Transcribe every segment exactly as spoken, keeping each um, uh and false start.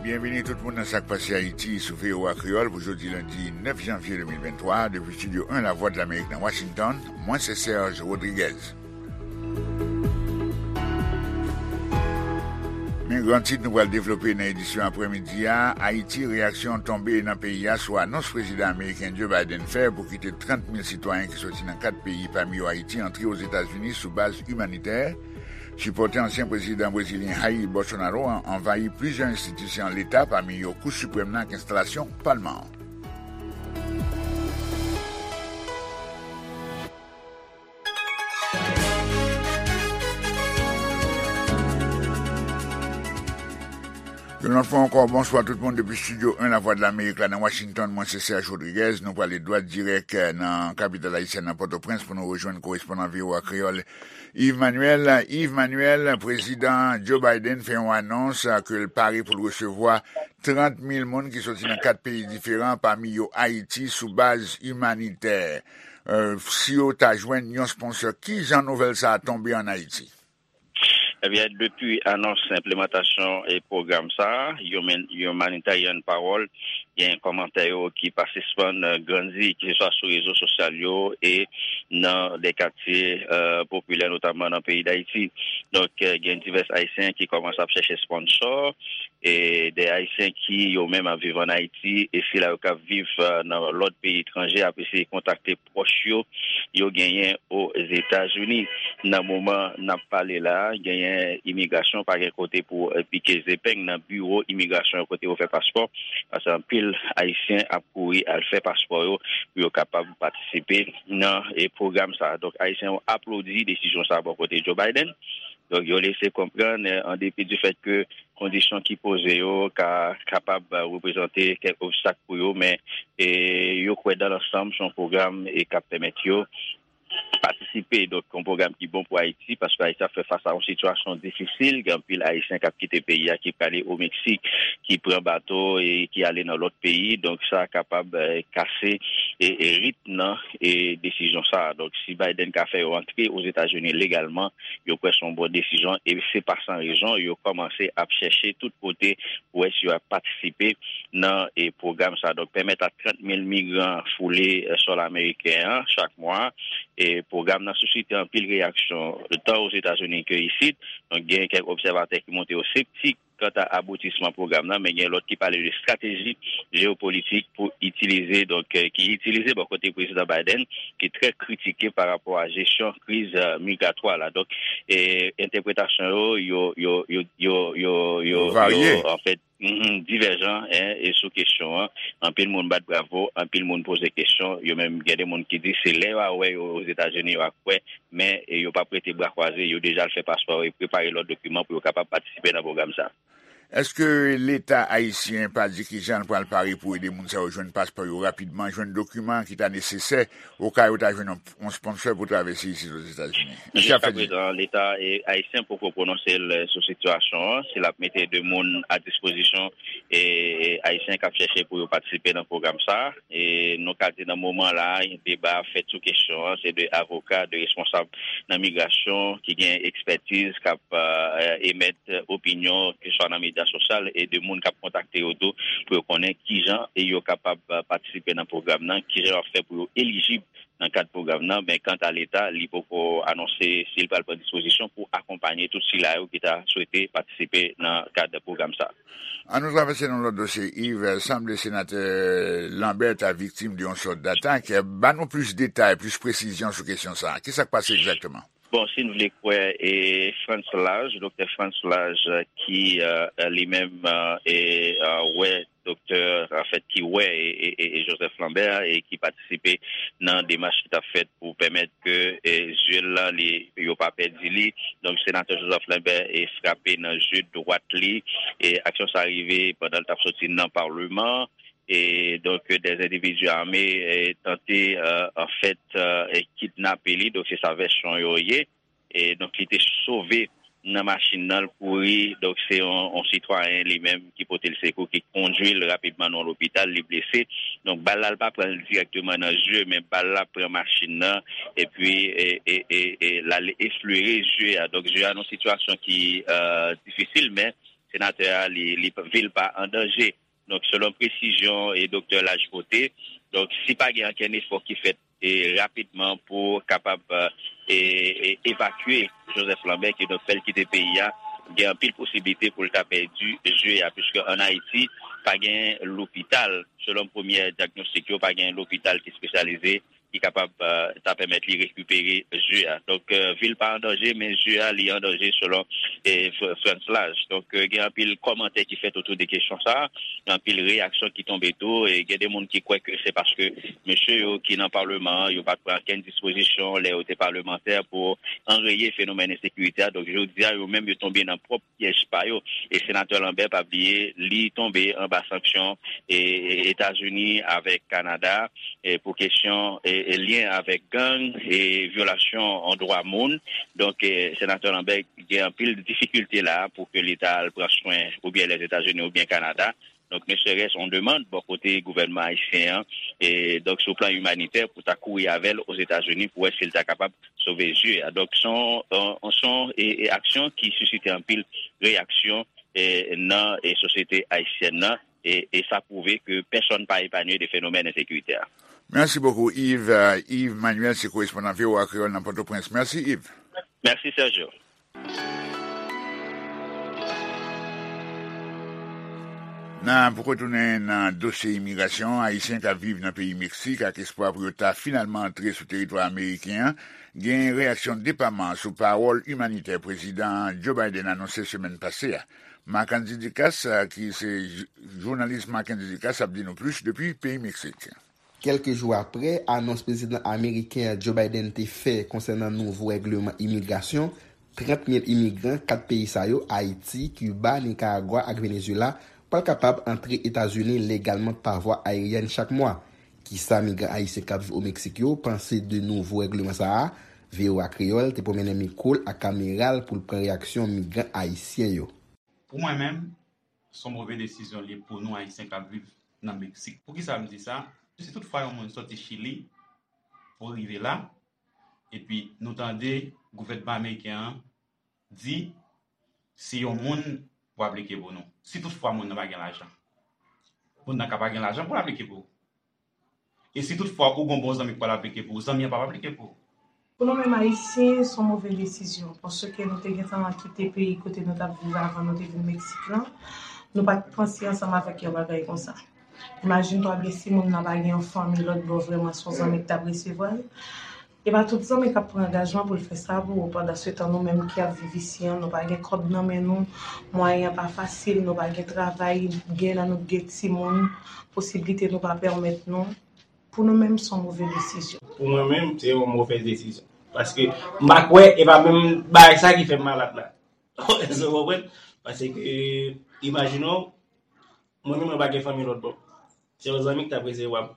Byenvini tout moun nan Sa k Pase Ayiti sou V O A Kreyòl pou jodi lendi nèf janvye de mil venntwa, depi Estidyo en Lavwadlamerik nan Washington. Mwen se Serge Rodriguez. Men gran tit nou pral devlope nan edisyon aprèmidi a: Ayiti, reyaksyon tonbe nan peyi a sou anons prezidan ameriken Joe Biden fè pou kite trant mil sitwayen ki soti nan kat peyi, pami yo Ayiti, antre Ozetazini sou baz imanitè. Sipòtè ansyen prezidan brezilyen Jair Bolsonaro an anvayi plizyè enstitisyon leta, pami yo Kou Siprèm nan ak enstalasyon palman an. Yon lòt fwa ankò, bonswa tout moun depi Estidyo en Lavwadlamerik la nan Washington. Mwen se Serge Rodriguez. Nou prale dwat dirèk, eh, nan kapital ayisyèn nan Pòtoprens pou nou rejwenn korespondan V O A Kreyòl Yves Manuel. Yves Manuel, prezidan Joe Biden fè yon anons, eh, ke l pare pou l resevwa trant mil moun ki soti nan kat peyi diferan, pami yo Ayiti, sou baz imanitè. Eh, si yo ta jwenn yon sponsor, ki jan nouvèl sa a tonbe ann Ayiti? Ebyen, depi anons enplimantasyon e pwogram sa a, Human-, Humanitarian Parole, gen kòmantè yo ki pa sispann, eh, grandi, keseswa sou rezo sosyal yo e nan de katye, eh, popilè, notamman nan peyi Dayiti. Donk, eh, gen divès Ayisyen ki kòmanse ap chèche sponsò, e de Ayisyen ki yo menm ap viv ann Ayiti, e sila yo k ap viv, eh, nan lòt peyi etranje ap eseye kontakte pwòch yo, yo genyen Ozetazini. Nan moman n ap pale la a, genyen imigrasyon pa gen kote pou, eh, pike zepeng nan biwo imigrasyon yo kote yo fè paspò, paske anpil Ayisyen ap kouri al fè paspò yo pou yo kapab patisipe nan, eh, pwogram sa a. Donk, Ayisyen yo aplodi desizyon sa a bò kote Joe Biden. Donk, yo lese konprann, eh, an depi di fèt ke kondisyon ki poze yo ka kapab, eh, reprezante kèk obstak pou yo, men, eh, yo kwè dan lansanm se yon pwogram, eh, k ap pèmèt yo patisipe. Donk, yon pwogram ki bon pou Ayiti, paske Ayiti ap fè fas a yon sitiyasyon difisil. Gen anpil Ayisyen k ap kite peyi a, ki prale o Meksik, ki pran bato e ki ale nan lòt peyi. Donk, sa kapab, eh, kase e, e ritm nan e desizyon sa a. Donk, si Biden ka fè yo antre Ozetazini legalman, yo kwè se yon bon desizyon e se pa san rezon yo kòmanse ap chèche tout kote pou wè si yo ap patisipe nan, e, pwogram sa a. Donk, pèmèt a trant mil migran foule, eh, sòl ameriken an chak mwa. E pwogram nan sisite anpil reyaksyon, tan Ozetazini ke isit. Donk, gen kèk obsèvatè ki montre yo septik kanta aboutisman pwogram nan, men gen lòt ki pale de estrateji jewopolitik pou itilize, donk, eh, ki itilize bò kote prezidan Biden, ki trè kritike pa rapò a jesyon kriz, eh, migratwa la. Donk, eh, entèpretasyon yo, yo, yo, yo, yo, yo, yo, yo, yo, anfèt, mhm, divèjan, en, e sou kesyon an. Anpil moun bat bravo, anpil moun poze kesyon. Yo menm, gen de moun ki di se lè yo a wè yo Ozetazini, yo a kwè, men, e, yo p ap rete bra kwaze, yo deja al fè paspò e prepare lòt dokiman pou yo kapab patisipe nan pwogram sa a. Èske Leta ayisyen pa di kijan l pral pare pou ede moun sa yo jwenn paspò yo rapidman, jwenn dokiman ki ta nesesè, oka yo ta jwenn yon, yon sponsor pou travèse isit Ozetazini? Èske y ap fè di? Jiskaprezan, Leta, e, ayisyen poko pwononse l sou sitiyasyon an, si l ap mete de moun a dispozisyon, e, e, ayisyen k ap chèche pou yo patisipe nan pwogram sa a. E nou ka di nan moman la a, deba ap fèt sou kesyon an, se de avoka, de responsab nan migrasyon ki gen ekspètiz, k ap, eh, emèt opinyon, keseswa nan medya sosyal, e de moun k ap kontakte yo tou, pou yo konnen kijan e yo kapab, eh, patisipe nan pwogram nan, kijan yo ap fè pou yo elijib nan kad pwogram nan. Men kanta Leta, li poko anonse si l pral pran dispozisyon pou akonpanye tout sila yo ki ta swete patisipe nan kad pwogram sa a. Ann nou travèse nan lòt dosye, Yves. Sanble senatè Lambert ta viktim de yon sòt d'atak. Ba nou plis detay, plis presizyon sou kesyon sa a. Kisa k pase egzakteman? Bon, si n vle kwè, e, Frantz Laj, doktè Frantz Laj, ki, eh, li menm, eh, e, eh, wè doktè, anfèt, ki wè, e, e, e, e Joseph Lambert, e ki patisipe nan demach ki t ap fèt pou pèmèt ke, e, zye l lan, li, yo pa pèdi li. Donk, senatè Joseph Lambert, e, frape nan je dwat li. E aksyon sa rive pandan l t ap soti nan Palman. E donk, de endividi ame, e, tante, e, anfèt, e, e, kidnape li. Donk, se sa vèsyon yo ye. E donk, li te sove nan machin nan, l kouri. Donk, se yon, yon sitwayen li menm ki pote l sekou, ki kondui l rapidman nan yon lopital, li blese. Donk, bal la, l pa pran l dirèkteman nan zye, men bal la pran machin nan, epi, e, e, e, e, l al eflere zye a. Donk, zye a nan yon sitiyasyon ki, e, difisil, men senatè a, li, li, vi l pa an danje. Donk, selon presizyon e doktè Laj pote, donk, si pa gen ankenn efò ki fèt e rapidman pou kapab e, e, evakye Joseph Lambert, ki donk fè l kite peyi a, gen anpil posiblite pou l ta pèdi zye a, piske ann Ayiti, pa gen lopital, selon premyè dyagnostik yo, pa gen lopital ki espesyalize ki kapab eh, ta pèmèt li rekipere zye a. Donk, eh, vi l pa an danje, men zye a, li an danje selon eh, Fr- Frantz Laj. Donk, eh, gen anpil kòmantè ki fèt otou de kesyon sa a, gen anpil reyaksyon ki tonbe tou, e gen de moun ki kwè ke se paske mesye yo ki nan palman an, yo pa t pran kenn dispozisyon lè yo te palmantè pou anreye fenomèn ensekirite a. Donk, jodi a, yo menm, yo tonbe nan pwòp pyèj pa yo. E senatè Lambert, pa bliye, li tonbe anba sanksyon e, e, Etazini avèk Kanada e, pou kesyon e, e, lyen avèk gang e vyolasyon an dwa moun. Donk, e, senatè Lambert gen anpil difikilte la pou ke li ta al pran swen oubyen Lèzetazini oubyen Kanada. Donk, ne serait-ce on demann bò kote gouvènman ayisyen an, e, donk, sou plan imanitè, pou ta kouri avè l Ozetazini pou wè si l ta kapab sove zye a. Donk, se yon, se yon e, e aksyon ki sisite anpil reyaksyon e, nan e, sosyete ayisyèn nan, e, e sa pwouve ke pèsonn pa epanye de fenomèn ensekirite a. Mèsi bokou, Yves. Euh, Yves Manuel, se korespondan V O A Kreyòl nan Pòtoprens. Mèsi, Yves. Mèsi, Sergio. Nan, pou retounen nan dosye imigrasyon, Ayisyen k ap viv nan peyi Meksik ak espwa pou yo ta finalman antre sou teritwa ameriken an, gen reyaksyon depaman sou pawòl imanitè Prezidan Joe Biden anonse semèn pase a. Marc Andy Ducasse, ki se jou- jounalis Marc Andy Ducasse, ap di nou plis depi peyi Meksik. Kèlke jou apre anons prezidan ameriken an Joe Biden te fè konsènan nouvo règleman imigrasyon, trant mil imigran kat peyi sa yo, Ayiti, Kiba, Nikaragwa ak Venezuela, pral kapab antre Etazini legalman pa vwa ayeryèn chak mwa. Kisa migran ayisyen k ap viv o Meksik yo panse de nouvo règleman sa a? V O A Kreyòl te pwomennen mikwo l ak kamera l pou l pran reyaksyon migran ayisyen yo. Pou mwen menm, se yon move desizyon li ye pou nou Ayisyen k ap viv nan Meksik. Poukisa m di sa? Si toutfwa yon moun soti Chili pou rive la, epi nou tande gouvènman ameriken an di, si yon moun pou aplike pou nou, si toutfwa moun nan pa gen lajan, moun nan ka pa gen lajan pou l aplike pou ou. E si toutfwa ou gon bon zanmi k pral aplike pou ou, zanmi an p ap aplike pou ou. Pou nou menm Ayisyen, se yon move desizyon, paske nou te gentan kite peyi kote nou t ap viv avan nou te vin Meksik lan. Nou pa t panse ansanm avèk yon bagay konsa. Imajine twa byen si moun nan pa gen yon fanmi lòt bò, vrèman se yon zanmi k t ap resevwa l. E pa tout zanmi k ap pran angajman pou l fè sa pou ou. Pandansetan, nou menm ki ap viv isi an, nou pa gen kòb nan men nou, mwayen an pa fasil, nou pa gen travay, gen nan nou gen timoun, posiblite nou pa pèmèt nou. Pou nou menm, se yon move desizyon. Pou mwen menm, se yon movèz desizyon. Paske m pa kwè, e pa menm bagay sa ki fè m malad la. Èske w konprann? Paske, imajine w, mwen menm, mwen pa gen fanmi lòt bò. Se yon zanmi ki t ap resevwa m.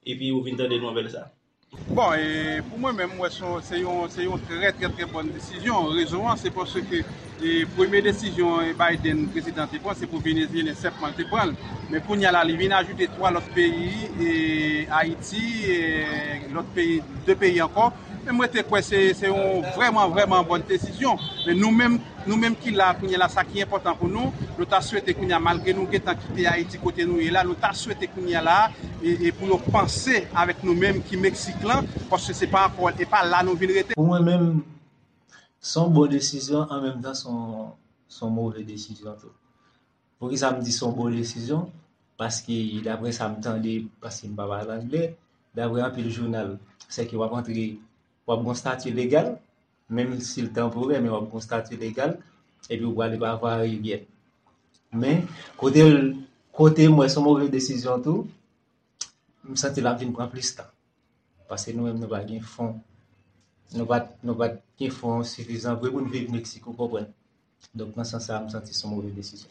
Epi ou vin tande nouvèl sa. Bon, e pou mwen menm, m wè se yon, se yon, se yon trè, trè, trè bòn desizyon. Rezon an, se paske, e, premye desizyon, e, Biden, prezidan, te pran, se pou Venezyelyen sèlman l te pran l. Men kounye a la, li vin ajoute twa lòt peyi, e, Ayiti, e, lòt peyi, de peyi ankò. Men mwen te kwè se, se yon vrèman, vrèman bòn desizyon. Men nou menm, nou menm ki la kounye a la, sa ki enpòtan pou nou, nou ta swete kounye a, malgre nou gentan kite Ayiti kote nou ye la, nou ta swete kounye a la, e, e pou yo panse avèk nou menm ki Meksik lan, paske se pa ankò, e pa la nou vin rete. Pou mwen menm, se yon bon desizyon, an menm tan, se yon, se yon move desizyon tou. Poukisa m di se yon bon desizyon? Paske, daprè sa m tande, paske m pa pale anglè, daprè anpil jounal, sèke w ap antre, w ap gon stati legal, menm si l tanporè, men w ap gon stati legal, epi w prale pa vwa ayeryèn. Men, kote l, kote m wè se yon move desizyon tou, m santi l ap vin pran plis tan. Paske nou menm nou pa gen fon. Nou pa, nou pa gen fon sifizan vre pou n viv Meksik, ou konprann. Donk, nan sans sa a, m santi se yon move desizyon.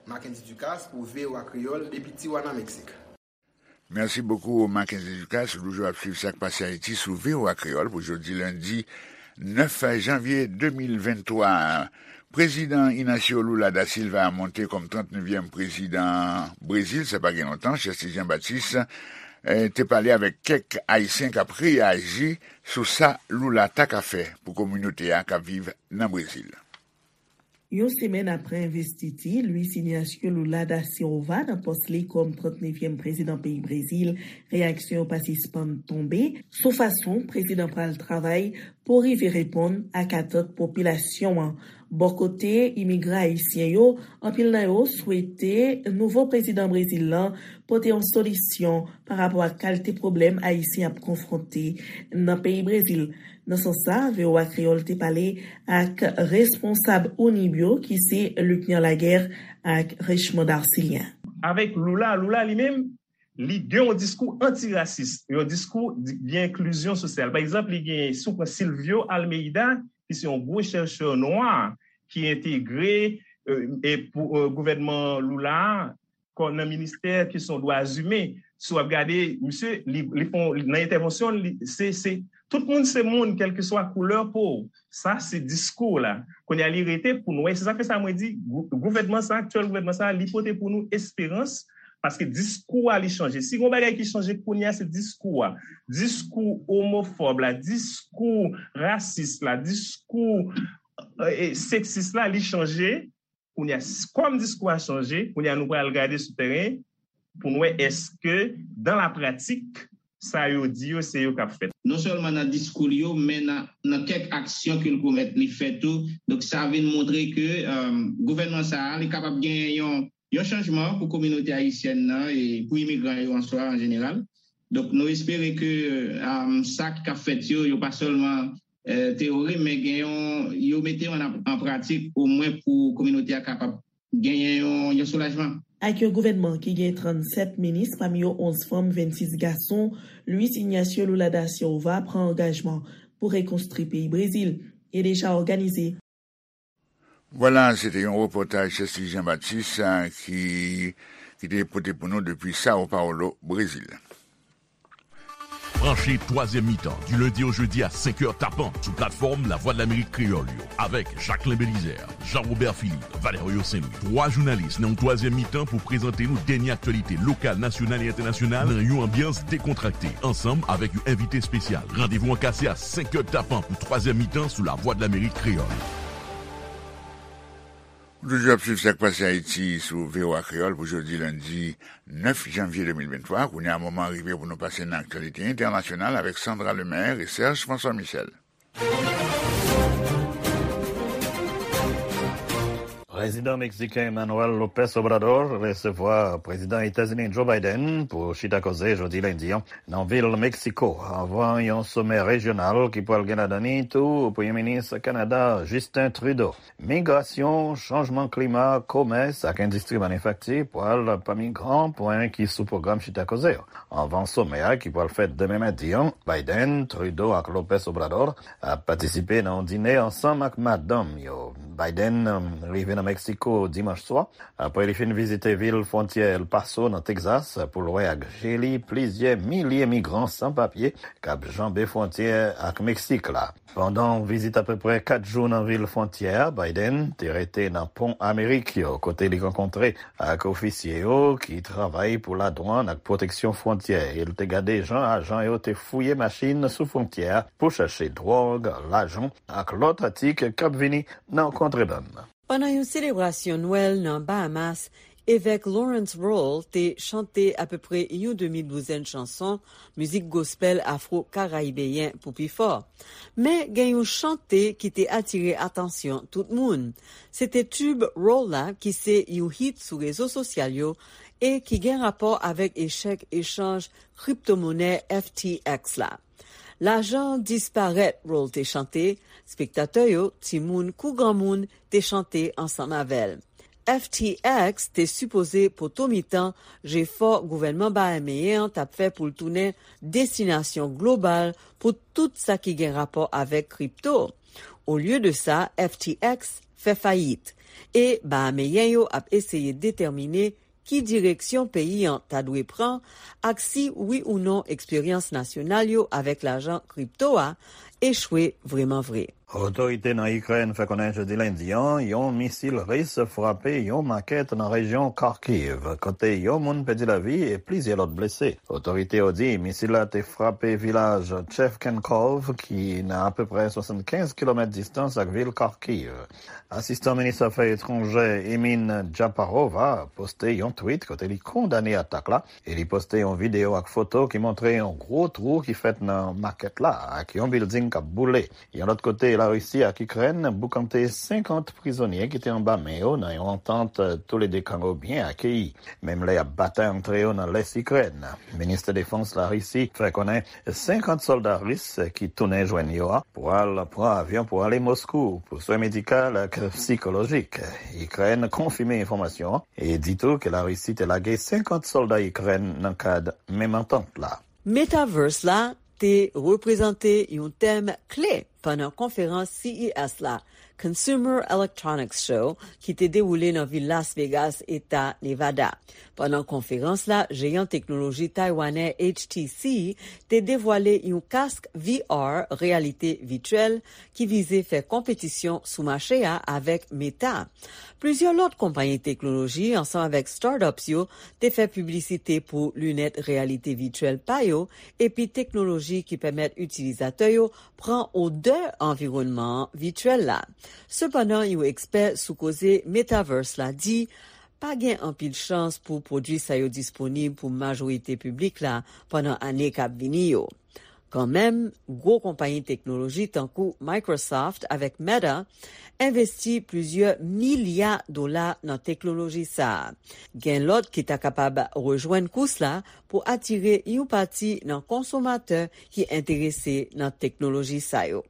Mackendy Ducasse pou V O A Kreyòl depi Tijuana, Meksik. Mèsi bokou, Mackendy Ducasse. Ou toujou ap swiv sa k pase Ayiti sou V O A Kreyòl pou jodi lendi nèf janvye de mil venntwa. Prezidan Ignacio Lula da Silva a monte kòm trannnevyèm prezidan Brezil, sa pa gen lontan, Chèste Jean Baptiste, eh, te pale avèk kèk Ayisyen k ap reyaji sou sa Lula ta ka fè pou kominote a k ap viv nan Brezil. Yon semèn apre envestiti Luiz Inácio Lula da Silva nan pòs li kòm trannnevyèm prezidan peyi Brezil, reyaksyon yo pa sispann tonbe sou fason prezidan pral travay pou rive reponn ak atant popilasyon an. Bò kote imigran ayisyen yo, anpil nan yo swete nouvo prezidan Brezil lan pote yon solisyon pa rapò ak kalite pwoblèm ayisyen ap konfwonte nan peyi Brezil. Nan sans sa, V O A Kreyòl te pale ak responsab Unib yo, ki se Luckner Laguerre ak Richemond Arcilien. Avèk Lula, Lula li menm, li gen yon diskou antirasis, yon diskou di- de enklizyon sosyal. Pa egzanp, li gen, si w pran Silvio Almeida, ki se yon gwo chèchè nwa ki entegre e, e pou e, gouvènman Lula a, kò nan ministè kesyon dwa imen. Si w ap gade, misye, li, li fon, nan entèvansyon, li, se, se, tout moun se moun, kèlkeswa koulè po w. Sa, se diskou la. Kounye a, li rete pou nou wè. Se sa k fè sa mwen di, gou- gouvènman sa, aktyèl gouvènman sa, li pote pou nou esperans, paske diskou a, li chanje. Si gon bagay ki chanje kounye a, se diskou a. Diskou omofòb la, diskou rasis la, diskou e, e, seksis la, li chanje. Kounye a, s- kòm diskou a chanje, kounye a nou pral gade sou teren pou n wè èske, dan la pratik, sa yo di yo, se yo k ap fèt. Non sèlman nan diskou li yo, men nan, nan kèk aksyon ke l komèt, li fè tou. Donk, sa vin montre ke um, gouvènman sa a, li kapab genyen yon, yon chanjman pou kominote ayisyèn nan e pou imigran yo an swa an jeneral. Donk, nou espere ke um, sa k ap fèt yo, yo pa sèlman eh, teyori, men gen yon, yo mete yo an, an pratik, omwen pou kominote a kapab genyen yon, yon soulajman. Ak yon gouvènman ki gen trannsèt minis, pami yo onz fanm, vennsis gason, Luiz Inácio Lula da Silva pran angajman pou rekonstwi peyi Brezil e deja òganize. Vwala, se te yon repòtaj Chesly Jean Baptiste, eh, ki, ki te pote pou nou depi Sao Paulo, Brezil. Branche twazyèm mitan, du lundi au jeudi à cinq heures tapant, sou platfòm Lavwadlamerik Kreyòl yo, avèk Jacquelin Belizaire, Jean-Robert Philippe, Valerio Saint-Louis. Twa jounalis nan yon twazyèm mitan pou prezante nou dènye aktyalite lokal, nasyonal e entènasyonal nan yon anbyans dekontrakte, ansanm avèk yon envite espesyal. Randevou an kase a senk è tapan pou twazyèm mitan sou Lavwadlamerik Kreyòl. Ou toujou ap swiv Sa k Pase Ayiti sou V O A Kreyòl pou jodi lendi nèf janvye de mil venntwa. Kounye a, moman an rive pou nou pase nan aktyalite entènasyonal avèk Sandra Lemaire e Serge François Michel. Prezidan meksiken Manuel López Obrador resevwa Prezidan Etazini Joe Biden pou chita koze jodi lendi an nan vil Meksiko, anvan yon somè rejyonal ki pral gen ladan li tou Premye Minis Kanada Justin Trudeau. Migrasyon, chanjman klima, komès ak endistri manifakti pral pami gran pwen ki sou pwogram chita koze yo. Anvan somè a ki pral fèt demen madi an, Biden, Trudeau ak López Obrador ap patisipe nan yon dine ansanm ak madanm yo. Biden, um, rive nan Meksiko dimanch swa, apre li fin vizite vil fwontyè El Paso nan Tegzas pou l wè ak je li plizyè milye migran san papye k ap janbe fwontyè ak Meksik la. Pandan yon vizit apeprè kat jou nan vil fwontyè a, Biden te rete nan Pon Amerik yo, kote li rankontre ak ofisye yo ki travay pou ladwann ak pwoteksyon fwontyè, e l te gade jan ajan yo te fouye machin sou fwontyè a pou chache dwòg, lajan ak lòt atik k ap vini nan kontrebann. Pandan yon selebrasyon Nwèl nan Bahamas, evèk Lawrence Roll te chante apeprè yon demi douzèn chanson mizik gospèl afwo-karayibeyen pou pi fò. Men gen yon chante ki te atire atansyon tout moun. Se te tib Roll la ki se yon hit sou rezo sosyal yo e ki gen rapò avèk echèk echanj kriptomonè F T X la. Lajan disparèt, Roll te chante, spektatè yo, timoun kou granmoun, te chante ansanm avè l. F T X te sipoze poto mitan jefò gouvènman bahameyen an t ap fè pou l tounen destinasyon global pou tout sa ki gen rapò avèk kripto. Olye de sa, F T X fè fayit. E bahameyen yo ap eseye detèmine ki direksyon peyi an ta dwe pran ak si wi ou non eksperyans nasyonal yo avèk lajan kripto a echwe vrèman vre. Otorite nan Ikrèn fè konnen jodi lendi an, yon misil ris frape yon makèt nan rejyon Kharkiv, kote yon moun pèdi lavi e plizyè lòt blese. Otorite yo di misil la te frape vilaj Chevchenkov, ki nan apeprè swasannkenz kilomèt distans ak vil Kharkiv. Asistan minis afè etranjè Emin Japarova poste yon tweet kote li kondane atak la e li poste yon videyo ak foto ki montre yon gwo twou ki fèt nan makèt la ak yon bilding k ap boule. Yon lòt kote, Larisi ak Ikrèn boukante senkant prizonye ki te anba men yo nan yon antant, toulede kan yo byen akeyi, menm lè y ap batay antre yo nan lès Ikrèn. Minis defans Larisi fè konnen senkant sòlda ris ki tounen jwenn yo a pral pran avyon pou ale Moskou pou swen medikal ak sikolojik. Ikrèn konfime enfòmasyon an e di tou ke Larisi te lage senkant sòlda Ikrèn nan kad menm antant la. Metaverse la te reprezante yon tèm kle pandan konferans C E S la, Consumer Electronics Show, ki te dewoule nan vil Las Vegas, eta Nevada. Pandan konferans la, jeyan teknoloji taywanè H T C te devwale yon kask V R, reyalite vityèl, ki vize fè konpetisyon sou mache a avèk Meta. Plizyè lòt konpayi teknoloji, ansanm avèk startups yo, te fè piblisite pou linèt reyalite vityèl pa yo, epi teknoloji ki pèmèt itilizatè yo pran odè anviwònman an vityèl la. Sepandan, yon ekspè sou koze metaverse la di, pa gen anpil chans pou pwodui sa yo disponib pou majorite piblik la pandan ane k ap vini yo. Kanmenm, gwo konpayi teknoloji tankou Microsoft avèk Meta envesti plizyè milya dola nan teknoloji sa a. Gen lòt ki ta kapab rejwenn kous la pou atire yon pati nan konsomatè ki enterese nan teknoloji sa yo.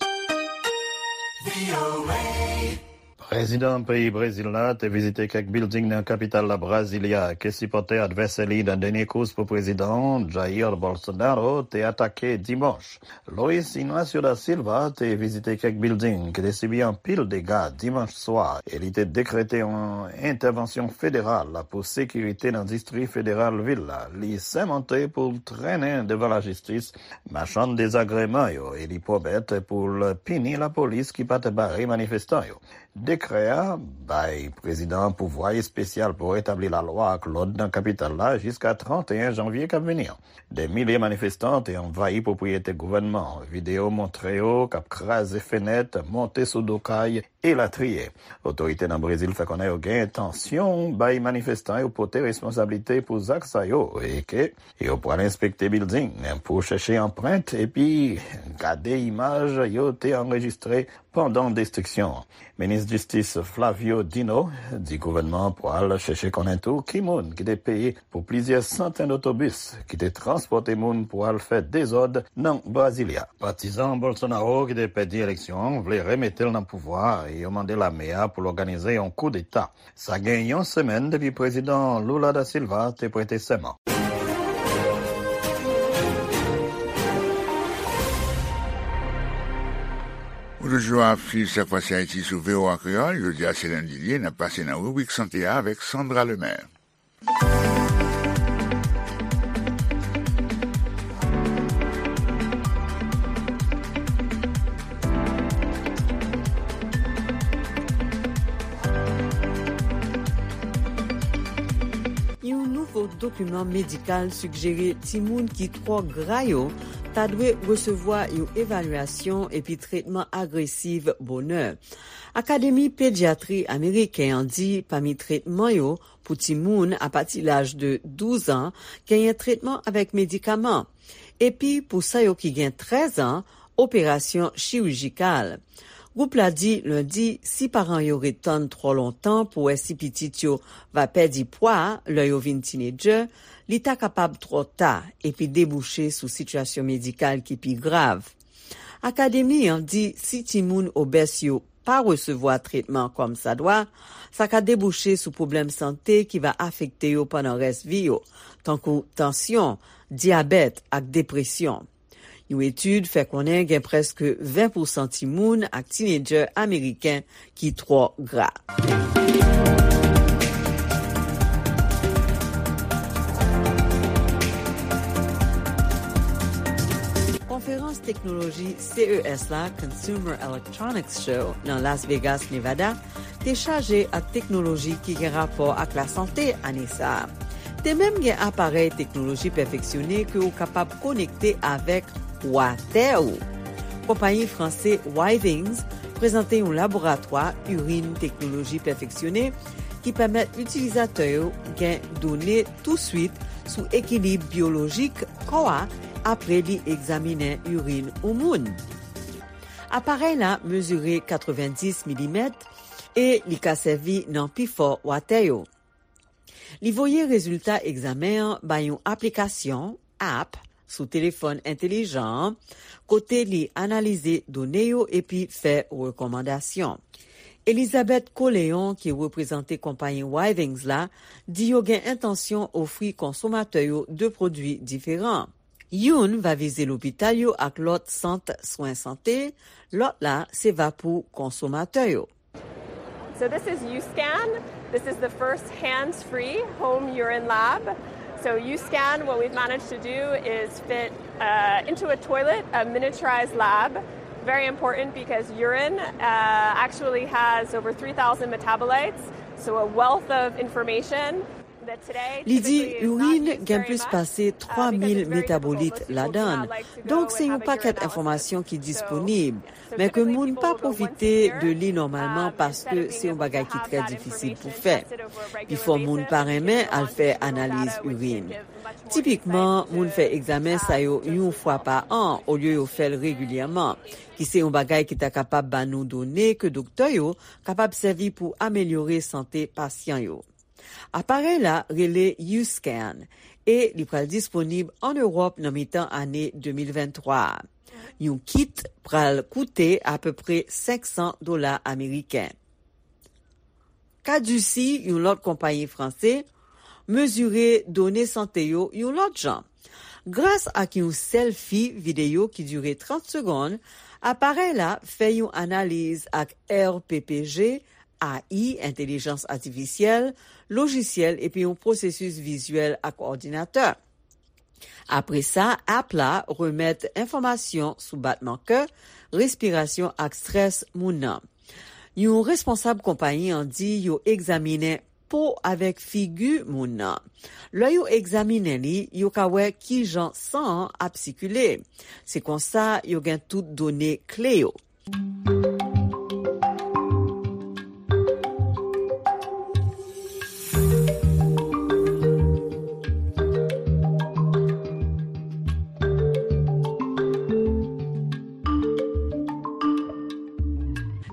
Prezidan peyi Brezil la te vizite kèk bilding nan kapital la, Brasilia, ke sipòtè advèsè li nan dènye kous pou prezidan, Jair Bolsonaro, te atake dimanch. Luiz Inácio da Silva te vizite kèk bilding ki te sibi anpil dega dimanch swa e li te dekrete yon entèvansyon federal pou sekirite nan distri federal vil la. Li sèmante pou l trennen devan lajistis machann dezagreman yo e li pwomèt pou l pini lapolis ki pa t bare manifestan yo. Dekrè a bay prezidan an pouvwa espesyal pou retabli lalwa ak lòd nan kapital la jiska tranteyen janvye k ap vini an. Dè milye manifestan te anvayi pwopriyete gouvènman an. Videyo montre yo k ap kraze fenèt, monte sou do kay, elatriye. Otorite nan Brezil fè konnen yo gen entansyon bay manifestan yo pote responsablite pou zak sa yo e ke yo pral enspekte bilding pou chèche anprent epi gade imaj yo te anrejistre pandan destriksyon an. Minis Jistis Flávio Dino di gouvènman an pral chèche konnen tou ki moun ki te peye pou plizyè santèn otobis ki te transpòte moun pou al fè dezòd nan Brasilia. Patizan Bolsonaro ki te pèdi eleksyon an vle remete l nan pouvwa a e yo mande lame a pou l òganize yon koudeta. Sa gen yon semèn depi prezidan Lula da Silva te prete sèman. Ou toujou ap swiv Sa k Pase Ayiti sou V O A Kreyòl. Jodi a se lendi l ye, n ap pase nan ribrik sante a avèk Sandra Lemaire. Yon nouvo dokiman medikal sijere timoun ki twò gra yo ta dwe resevwa yon evalyasyon epi tretman agresiv bonè. Akademi Pedyatri Ameriken an di pami tretman yo pou timoun apati laj de douz an, genyen tretman avèk medikaman. Epi pou sa yo ki gen trèz an, operasyon chirijikal. Gwoup la di lendi si paran yo ret tann twò lontan pou wè si pitit yo va pèdi pwa lè yo vin tinedjè, li ta kapab twò ta epi debouche sou sitiyasyon medikal ki pi grav. Akademi an di si timoun obès yo pa resevwa tretman kòmsadwa, sa ka debouche sou pwoblèm sante ki va afekte yo pandan rès vi yo, tankou tansyon, dyabèt ak depresyon. Yon etid fè konnen gen prèske ven pousan timoun ak tinedjè ameriken ki twò gra. Konferans Konferans teknoloji C E S la, Consumer Electronics Show, nan Las Vegas, Nevada, te chaje ak teknoloji ki gen rapò ak lasante ane sa a. Te menm gen aparèy teknoloji pèfeksyone ke w kapab konekte avèk watè ou. Konpayi franse Withings prezante yon laboratwa irin teknoloji pèfeksyone ki pèmèt itilizatè yo gen done touswit sou ekilib byolojik kò a apre li egzaminen irin yon moun. Aparèy la mezire katrevenndis milimèt e li ka sèvi nan pifò watè yo. Li voye rezilta egzamen an bay yon aplikasyon, app, sou telefòn entelijan an, kote li analize done yo epi fè rekòmandasyon. Elizabeth Coléon, ki reprezante konpayi Withings la, di yo gen entansyon ofri konsomatè yo de pwodui diferan. Youn va vize lopital yo ak lòt sant swen sante, lòt la se va pou konsomatè yo. So this is USCAN. This is the first hands-free home urine lab. So USCAN, what we've managed to do is fit uh, into a toilet a miniaturized lab. Very important because urine uh, actually has over three thousand metabolites, so a wealth of information. Li di irin gen plis pase twa mil metabolit ladan l. Donk, se yon pakèt enfòmasyon ki disponib, men ke moun pa pwofite de li nòmalman paske se yon bagay ki trè difisil pou fè. Pifò moun pa renmen al fè analiz irin. Tipikman, moun fè egzamen sa yo yon fwa pa an olye yo fè l regilyèman, ki se yon bagay ki ta kapab ba nou done ke doktè yo kapab sèvi pou amelyore sante pasyan yo. Aparèy la rele USCAN e li pral disponib ann Ewòp nan mitan ane de mil venntwa a. Yon kit pral koute apeprè senk san dola ameriken. Caduci, yon lòt konpayi franse, mezire done sante yo yon lòt jan. Gras ak yon sèlfi videyo ki dire trant segonn, aparèy la fè yon analiz ak R P P G, A I, entèlijans atifisyèl, lojisyèl epi yon pwosesis vizyèl ak òdinatè. Apre sa, app la remèt enfòmasyon sou batman kè, respirasyon ak strès moun nan. Yon responsab konpayi an di yo egzaminen po avèk figi moun nan. Lè yo egzaminen li, yo ka wè kijan san an ap sikile. Se konsa yo gen tout done kle yo.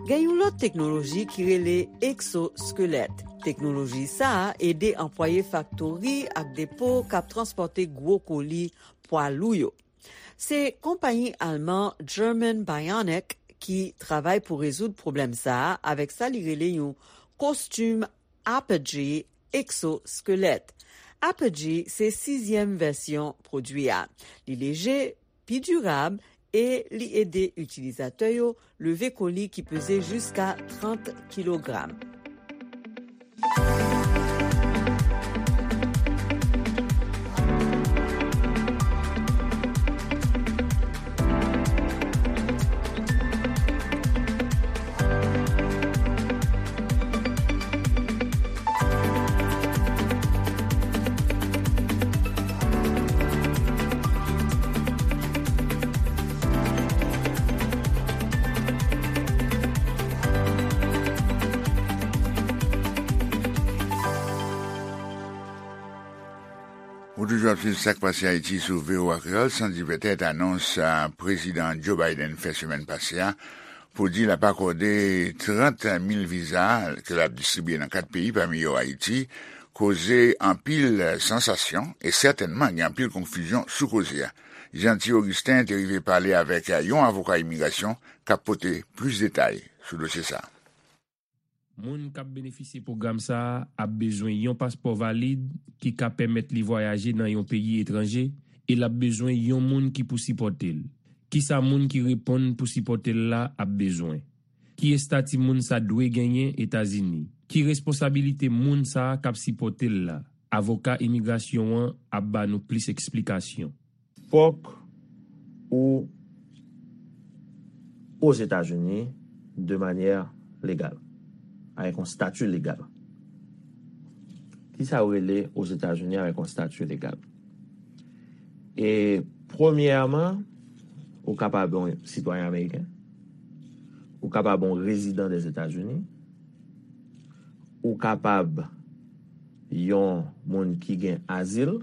Gen yon lòt teknoloji ki rele eksoskelèt. Teknoloji sa a ede anplwaye faktori ak depo k ap transpòte gwo koli pwa lou yo. Se konpayi alman German Bionic ki travay pou rezoud pwoblèm sa a avèk sa li rele yon kostim Apogee eksoskelèt. Apogee se sizyèm vèsyon pwodui a. Li leje, pi dirab e li ede itilizatè yo leve koli ki peze jiska trant kilogram. Ou toujou ap swiv Sa k Pase Ayiti sou V O A Kreyòl, san di petèt anons a Prezidan Joe Biden fè semèn pase a pou di l ap akòde trant mil viza ke l ap distribye nan kat peyi, pami yo Ayiti, koze anpil sansasyon e sètènman gen anpil konfizyon sou koze a. Jeanty Augustin te rive pale avèk yon avoka imigrasyon k ap pote plis detay sou dosye sa a. Moun k ap benefisye pwogram sa a ap bezwen yon paspò valid ki ka pèmèt li vwayaje nan yon peyi etranje e l ap bezwen yon moun ki pou sipòte l. Kisa moun ki reponn pou sipòte l la ap bezwen? Ki estati moun sa dwe genyen Etazini? Ki responsabilite moun sa a k ap sipòte l la? Avoka imigrasyon an ap ba nou plis eksplikasyon. Fòk ou Ozetazini de manyè legal, avèk yon stati legal. Kisa yo rele Ozetazini avèk yon stati legal? E premyèman, ou kapab yon sitwayen ameriken, ou kapab yon rezidan Dèzetazini, ou kapab yon moun ki gen azil,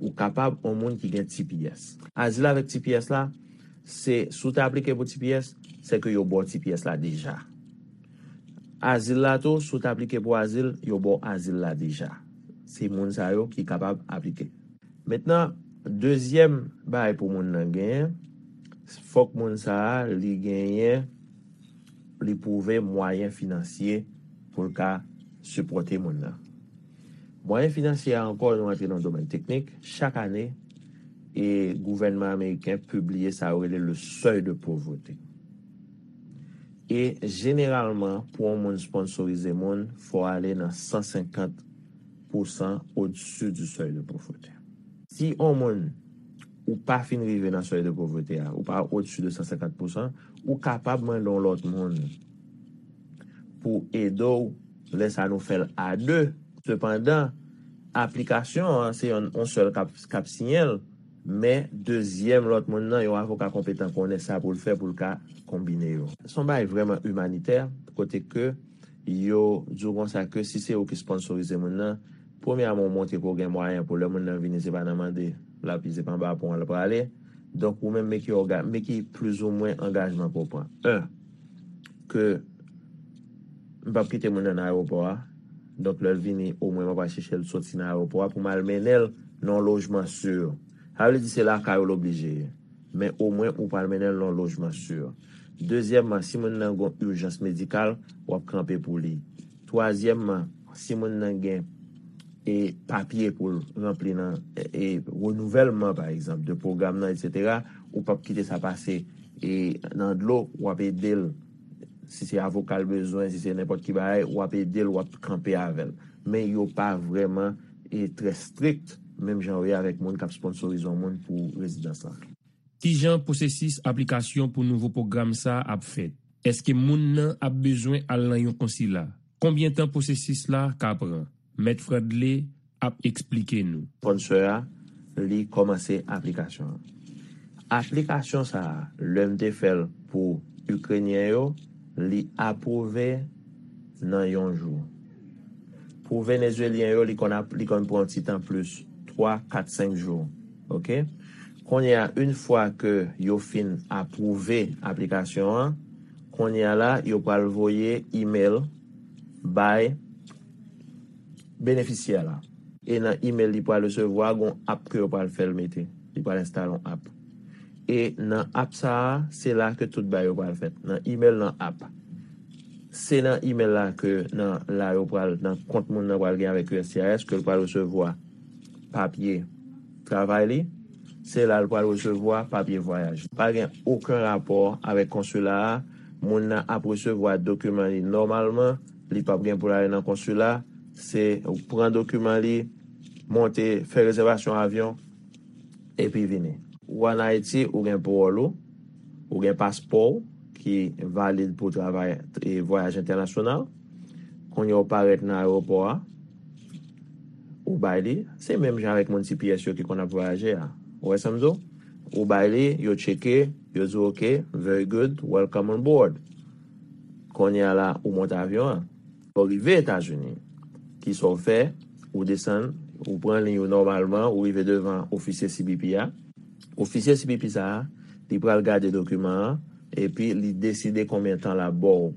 ou kapab yon moun ki gen T P S. Azil avèk T P S la, se si w te aplike pou T P S, se ke yo ba w T P S la deja. Azil la tou, si w te aplike pou azil, yo ba w azil la deja. Se moun sa yo ki kapab aplike. Mentnan, dezyèm bagay pou moun nan genyen, fòk moun sa a, li genyen, li pwouve mwayen finansye pou l ka sipòte moun nan. Mwayen finansye a ankò, nou antre nan domèn teknik. Chak ane, e gouvènman ameriken pibliye sa yo rele le seuil de pauvreté. E jeneralman, pou yon moun sponsorize moun, fò ale nan san senkant pousan au-dessus du seuil de pauvreté. Si yon moun ou pa fin rive nan seuil de pauvreté a, ou pa au-dessus de san senkant pousan, ou kapab mande yon lòt moun pou ede w, lè sa nou fè l a de. Sepandan, aplikasyon an, se yon, yon sèl k ap, k ap siyen l, men dezyèm lòt moun nan, yon avoka konpetan konnen sa pou l fè pou l ka konbine yo. Se yon bagay vrèman imanitè, kote ke yo di w konsa ke si se ou ki sponsorize moun nan, premyèman, ou montre ke w gen mwayen pou lè moun nan vini, se pa nan mande l ap, se pa anba pon an l prale. Donk, ou menm, men ki òga-, men ki plizoumwen angajman ke w pran. En, ke m p ap kite moun nan nan ayewopò a. Donk, lè l vini, omwen m ap al chèche l soti nan ayewopò a pou m al mennen l nan yon lojman si. Sa vle di se lakay ou l oblije ye. Men omwen ou pral mennen l nan yon lojman si. Dezyèmman, si moun nan gen yon ijans medikal, w ap kanpe pou li. Twazyèmman, si moun nan gen e papye pou l ranpli nan e, e renouvèlman, pa egzanp, de pwogram nan, etsetera, ou p ap kite sa pase e nan dlo, w ap ede l. Si se avoka l bezwen, si se nenpòt ki bagay, w ap ede l, w ap kanpe avè l. Men yo pa vrèman e trè estrikt, menm jan yo ye avèk moun k ap sponsorize yon moun pou rezidans lan. Kijan pwosesis aplikasyon pou nouvo pwogram sa a ap fèt? Èske moun nan ap bezwen al nan yon konsila? Konbyen tan pwosesis la ka pran? Mèt Fradley ap eksplike nou. Sponsor a, li kòmanse aplikasyon an. Aplikasyon sa a, lè m te fè l pou Ikrenyen yo, li apwouve nan yon jou. Pou Venezuelyen yo, li konn ap, li konn pran yon ti tan plis, twa, kat, senk jou. Oke? Kounye a, yon fwa ke yo fin apwouve aplikasyon an, kounye a la, yo pral voye email bay benefisyè la. E nan email li pral resevwa, gon app ke yo pral fè l mete. Li pral enstale yon app. E nan app sa a, se la ke tout bagay yo pral fèt. Nan email, nan app. Se nan email la ke nan la yo pral, nan kont moun nan pral gen avèk U S C I S, ke l pral resevwa papye travay li. Se la l pral resevwa papye vwayaj. Pa gen okenn rapò avèk konsila a. Moun nan ap resevwa dokiman li nòmalman. Li p ap gen pou l ale nan konsila. Se ou pran dokiman li, monte, fè rezèvasyon avyon, epi vini. Ou ann Ayiti, ou gen pawòl ou, ou gen paspò w ki valid pou travay e vwayaj entènasyonal. Kounye a ou parèt nan ayewopò a, ou bay li, se menm jan avèk moun T P S yo ki konn ap vwayaje a. Ou wè sa m di w? Ou bay li, yo tcheke, yo di w, "Ok, very good, welcome on board." Kounye a la, ou monte avyon an. Lè w rive Etazini, kisa w fè? Ou desann, ou pran liy ou nòmalman, ou rive devan ofisye C B P a. Ofisye C B P sa a, li pral gade dokiman an, epi li deside konbyen tan l ap ba w.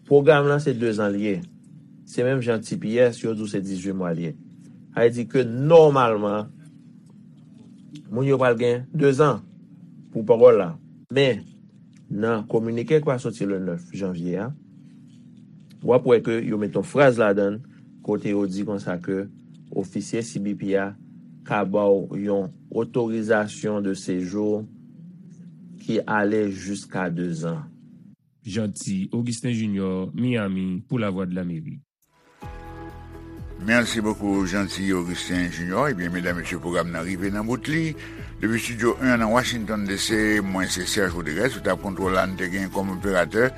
Pwogram lan se dezan l ye. Se menm jan T P S, yo di w se dizuit mwa l ye. Sa vle di ke nòmalman, moun yo pral gen dezan pou pawòl la. Men, nan kominike ki pral soti le nèf janvye a, w ap wè ke yo met yon fraz ladan l kote yo di konsa ke ofisye C B P a ka ba w yon otorizasyon de sejou ki ale jiska dezan. Jeanty Augustin Junior, Miami, pou Lavwadlamerik. Merci beaucoup, Jeanty Augustin Junior. Ebyen, medam, mesye, pwogram nan rive nan bout li. Depi Studio en nan Washington D C, mwen se Serge Rodriguez, sou tab kontwòl la, nou te gen kòm operatè,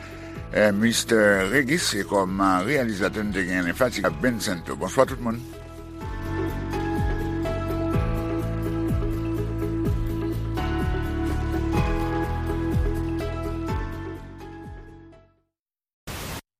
eh, Mister Regis, e kòm, eh, reyalizatè, nou te gen Fatika Bencento. Bonswa tout moun.